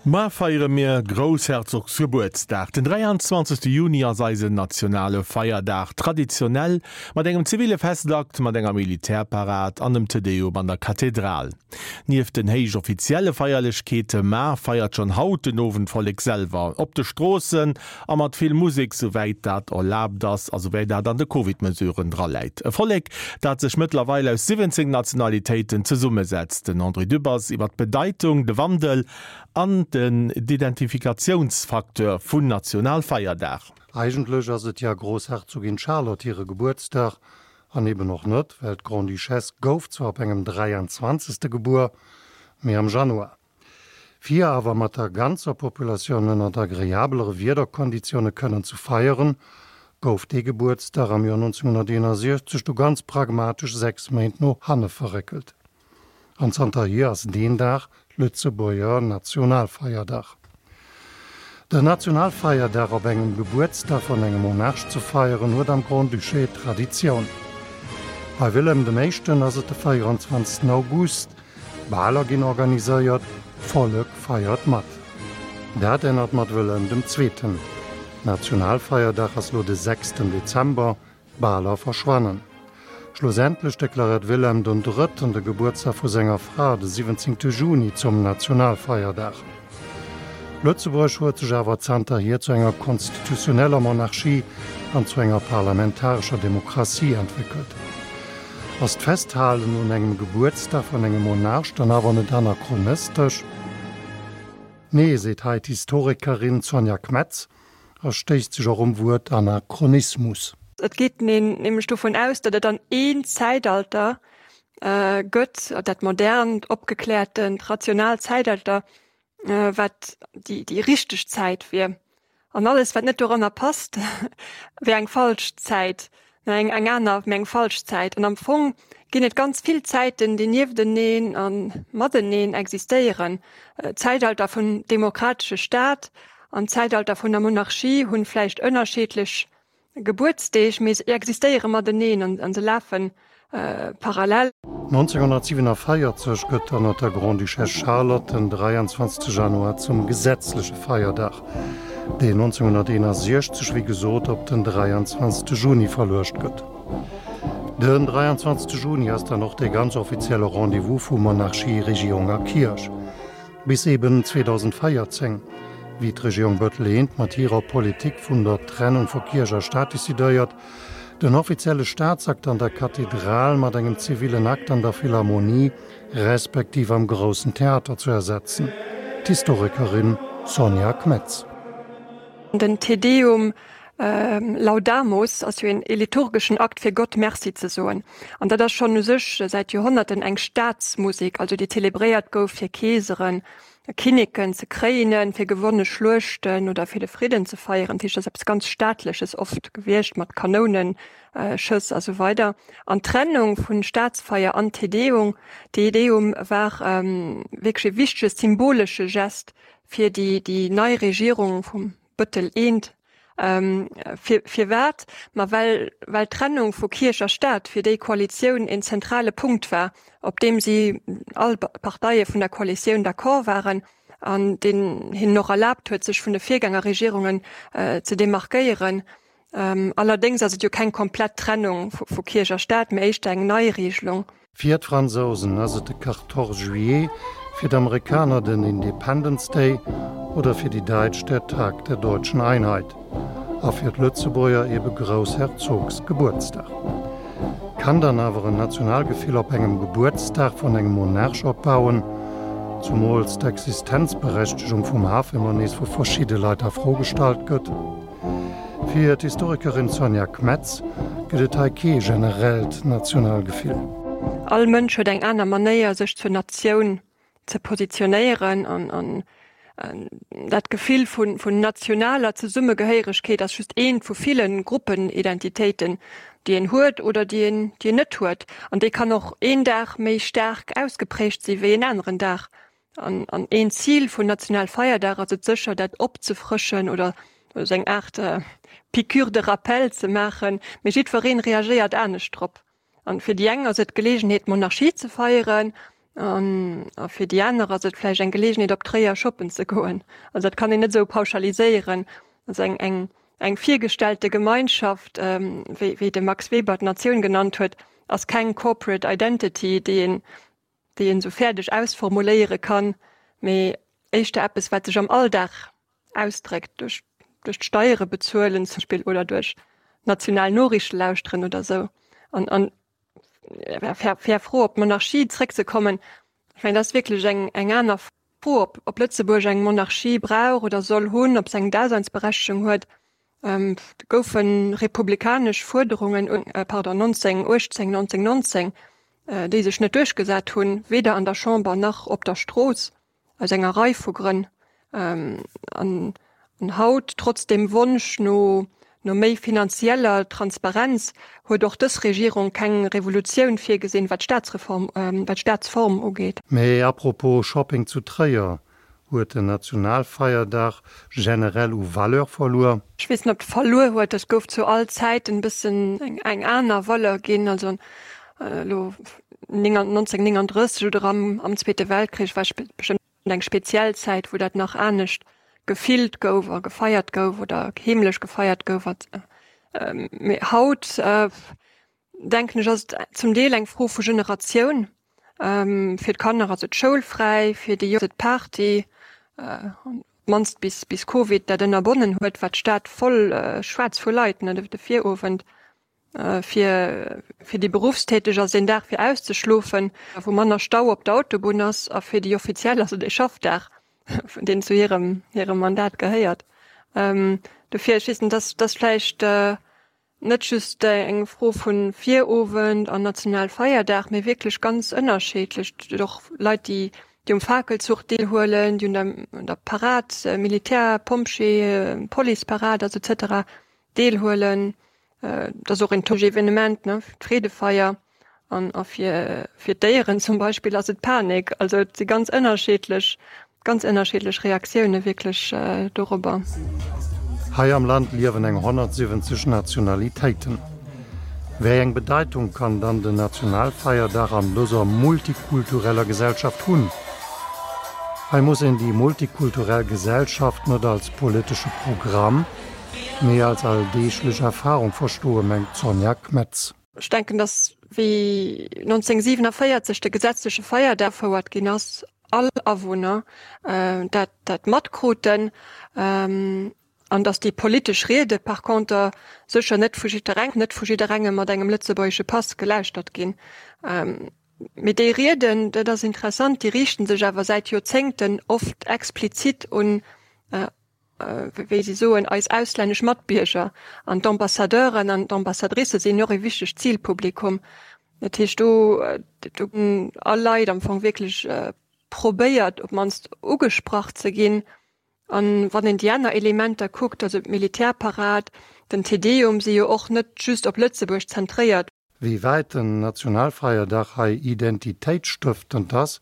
Mar feiere mir Groussherzogsgebuertsdag. Den 23. Juni ass eisen nationale Feierdag, traditionell mat engem zivile Festakt, mat enger Militärparad an dem Te Deum an der Kathedral. Nieft den héich offizielle Feierlechkeete mar feiert schonn haut den Owend d'Vollek selwer op de Stroossen a mat vill Musek, souwäit dat erlaabt ass a souwäit dat an de Covid-Mesuren draläit. E Vollek, dat sech mëttlerweil aus 17 Nationalitéiten zesummesetzt. Den André Dübbers iwwer d'Bedeitung, de Wandel an den d'Identifikatiounsfacteur vun Nationalfeierdag. Eigentlech ass et ja Grossherzogin Charlotte hire Gebuertsdag, an eben och net, well d'Grande-Duchesse gouf zwar op engem 23. Gebuer, mee am Januar. Fir awer mat der ganzer Populatioun ënnert agreabelere Wiederkonditioune kënnen ze feieren, gouf dee Gebuertsdag am Joer 1961 du ganz pragmatesch 6 Méint no hanne verréckelt. An zanterhier ass deen Dag Lëtzebuerger Nationalfeierdag. Den Nationalfeierdag op engem Gebuertsdag vun engem Monarch ze feieren, huet am Grand-Duché Traditioun. Bei Wilhelm dem Éischten ass et de 24 August, Baler ginn organiséiert, d'Vollek feiert mat. Dat ännert mat Wëllem dem Zweeten. Nationalfeierdag ass lo de sechsten Dezember, d'Baler verschwannen. Schlussendlech deklaréiert Wilhelm den Drëtten de Gebuertsdag vu senger Fra, de 17 Juni, zum Nationalfeierdag. Lëtzebuerg huet sech awer zanterhier zu enger konstitutioneller Monarchie an zu enger parlamentarescher Demokratie entwéckelt. Ass d'Festhalen un engem Gebuertsdag vun engem Monarch dann awer net anachronistesch? Nee, seet hei d'Historikerin Sonja Kmetz a stéisst sech och um Wuert Anachronismus. Et geet een nämlech dovun aus, datt et dann een Zäitalter gëtt, dat modernt, opgekläertent, rationaalt Zäitalter, wat déi déi richteg Zäit wier. An alles, wat net doranner passt, wär eng falsch Zäit, eng eng aner, mä eng falsch Zäit. An am Fong ginn et ganz vill Zäiten, déi niefteneen a mateneen existéieren. D'Zäitalter vum demokratesche Staat an d'Zäitalter vun der Monarchie hunn vläicht ënnerscheedlech Gebuertsdeeg, mee se existéiere mateneen an se lafe parallel. 1947 gëtt ënner der Grande-Duchesse Charlotte den 23 Januar zum gesetzleche Feierdag, deen 1961 wéi gesot op den 23 Juni verluecht gëtt. Den 23 Juni ass dann och dee ganz offizielle Rendez-vous vu Monarchie, Regierung a Kierch. Bis eben 2014, wéi d'Regierung Bettel I mat hirer Politik vun der Trennung vu Kierch a Staat decidéiert, den offizielle Staatsakt an der Kathedral mat engem zivillen Akt an der Philharmonie respektiv am Groussen Theater zu ersetzen. D'Historikerin Sonja Kmetz. Den Te Deum Laudamus ass jo een liturgeschen Akt fir Gott Merci ze soen. An dat ass schonn u sech säit Joerhonnerten eng Staatsmusek, also déi zelebréiert gouf fir Keeseren, Kinneken ze kréinen, fir gewonne Schluechten oder fir de Fridden ze feieren. Dat heescht, dat ass eppes ganz Staatleches oft gewiescht mat Kanounenschëss a sou weider. An d'Trennung vun Staatsfeier an Te Deum, Te Deum war wierklech e wichtege symbolesche Gest fir déi déi nei Regierung vum Bëttel I. Fir firwat? Ma well well d'Trennung vu Kierch a Staat fir déi Koalitioun een zentrale Punkt war, op deem si all Parteie vun der Koalitioun d'accord waren an deen hinnen och erlaabt huet, sech vun de Virgängerregierungen ze demarkéieren. Allerdéngs ass et jo keng komplett Trennung vu Kierch a Staat, mee éischter eng Neiregelung. Fir d'Fransousen ass et de Quatorze juillet, fir d'Amerikaner den Independence Day oder fir déi Däitsch der Tag der deutschen Einheit a fir d'Lëtzebuerger ebe Groussherzogsgebuertsdag. Kann dann awer en Nationalgefill op engem Gebuertsdag vun engem Monarch opbauen, zumools d'Existenzberechtegung vum Haf ëmmer nees vu verschidde Leit a Fro gestallt gëtt? Fir d'Historikerin Sonja Kmetz gëtt et hei kee generellt Nationalgefill. All Mënsch huet eng aner Manéier sech zur Natioun ze positionéieren an dat Gefill vun nationaler Zesummegehéieregkeet ass just eent vu ville Gruppenidentitéiten, déi een huet oder déi een déi een net huet. An déi kann och een Dag méi staark ausgeprägt si wéi en aneren Dag. An an een Zil vun Nationalfeierdag ass et sécher, dat opzefrëschen oder esou eng Aart Piqûre de rappel ze maachen. Mee jiddweree reagéiert anescht drop. An fir déi eng ass et d'Geleegenheet, d'Monarchie ze feieren. An a fir déi aner ass et vläicht eng Geleegenheet op Tréier shoppen ze goen. Also dat kann een net esou pauschaliséieren. Also eng eng eng virgestellte Gemeinschaft, wéi wéi de Max Weber d'Natioun genannt huet, ass keng corporate identity, déi een déi een esou fäerdeg ausformuléiere kann, mee éischter eppes, wat sech am Alldag ausdréckt, duerch duerch d'Steiere bezuelen zum Beispill oder duerch national Noriichte lauschteren oder esou. An an fair Fro op d'Monarchie zréckzekommen, ech mengen, dat ass wierklech eng eng aner Fro, ob ob Lëtzebuerg eng Monarchie brauch oder soll hunn, ob se eng Daseinsberechtegung huet. Et goufe republikanesch Fuerderungen, pardon, 1918, 1919, déi sech net duerchgesat hunn, weder an der Chamber nach op der Strooss, aus enger Rei vu Grënn. An haut, trotz dem Wonsch no méi finanzieller Transparenz, huet och dës Regierung keng Revolutioun virgesinn, wat d'Staatsreform, wat d'Staatsform ugeet. Mee apropos Shopping zu Tréier, Huet den Nationalfeierdag generell u Valeur verluer? Ech weess net, ob e verluer huet. Et gouf zu all Zäiten e bëssen eng aner Valeur ginn. Also elo 1939 oder am Zweete Weltkrich war bestëmmt eng speziell Zäit, wou dat nach anescht gefillt gouf a gefeiert gouf oder heemlech gefeiert gouf. Mee haut denken ech, ass et zum Deel eng Fro vu Generatioun. Fir d'Kanner ass et schoulfräi, fir déi Jonk ass et Party, op d'mannst bis bis Covid dat ënnerbonnen huet, war d'Stad voll schwaarz vu Leit, ne, de Virowend. Fir fir déi Beruffstäteg ass et een Dag fir auszeschlofen, wou manner Stau op der Autobunn ass, a fir déi Offiziell ass et ee Schaffdag, deen zu hirem hirem Mandat gehéiert. Dofir, ech weess net, dass dass vläicht Net just eng Fro vu Virowend an Nationalfeierdag, mee wierklech ganz ënnerscheedlech. Et gëtt och Leit, déi um Fakelzuch deelhuelen, déi un der Parad, Militär, Pompjee, Policeparad, also et cetera deelhuelen. Et ass och een Evenement, ne, d'Freedefeier. An a fir fir d'Déieren zum Beispill ass et Panik. Also et si ganz ënnerscheedlech, ganz ënnerscheedlech Reaktioune wierklech dorobber. Hei am Land liewen eng 170 Nationalitéiten. Wéi eng Bedeitung kann dann den Nationalfeierdag an dëser multikultureller Gesellschaft hunn? Hei muss een déi multikulturell Gesellschaft net als politesche Programm, mee als alldeeglech Erfarung verstoen, mengt d'Sonja Kmetz. Ech denken, datt wéi 1947 de gesetzleche Feierdag agefouert ginn ass, all Awunner dat dat matkruten an datt déi politesch Riede par conter sécher net vu jiddereng net vu jidderengem mat engem lëtzebuergesche Pass gelauschtert ginn. Mee déi Rieden, dat ass interessant, déi riichten sech awer säit Joerzéngten oft explizit un wéi si soen, eis auslännesch Matbierger an d'Ambassadeuren an d'Ambassadricë sinn och e wichtegt Zilpublikum. Dat heescht, do do hunn all Leit am Fong wierklech probéiert, op d'mannst ugesprach ze ginn. An wann een déi aner Elementer kuckt, also d'Militärparad, den Te Deum, si jo och net just op Lëtzebuerg zentréiert. Wéi wäit den Nationalfeierdag hei identitéitsstëftend ass,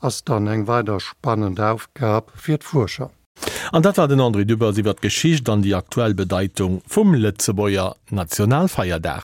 ass dann eng weider spannend Aufgab fir d'Fuerscher. An dat war den André Dübbers iwwer d'Geschicht an déi aktuell Bedeitung vum Lëtzebuerger Nationalfeierdag.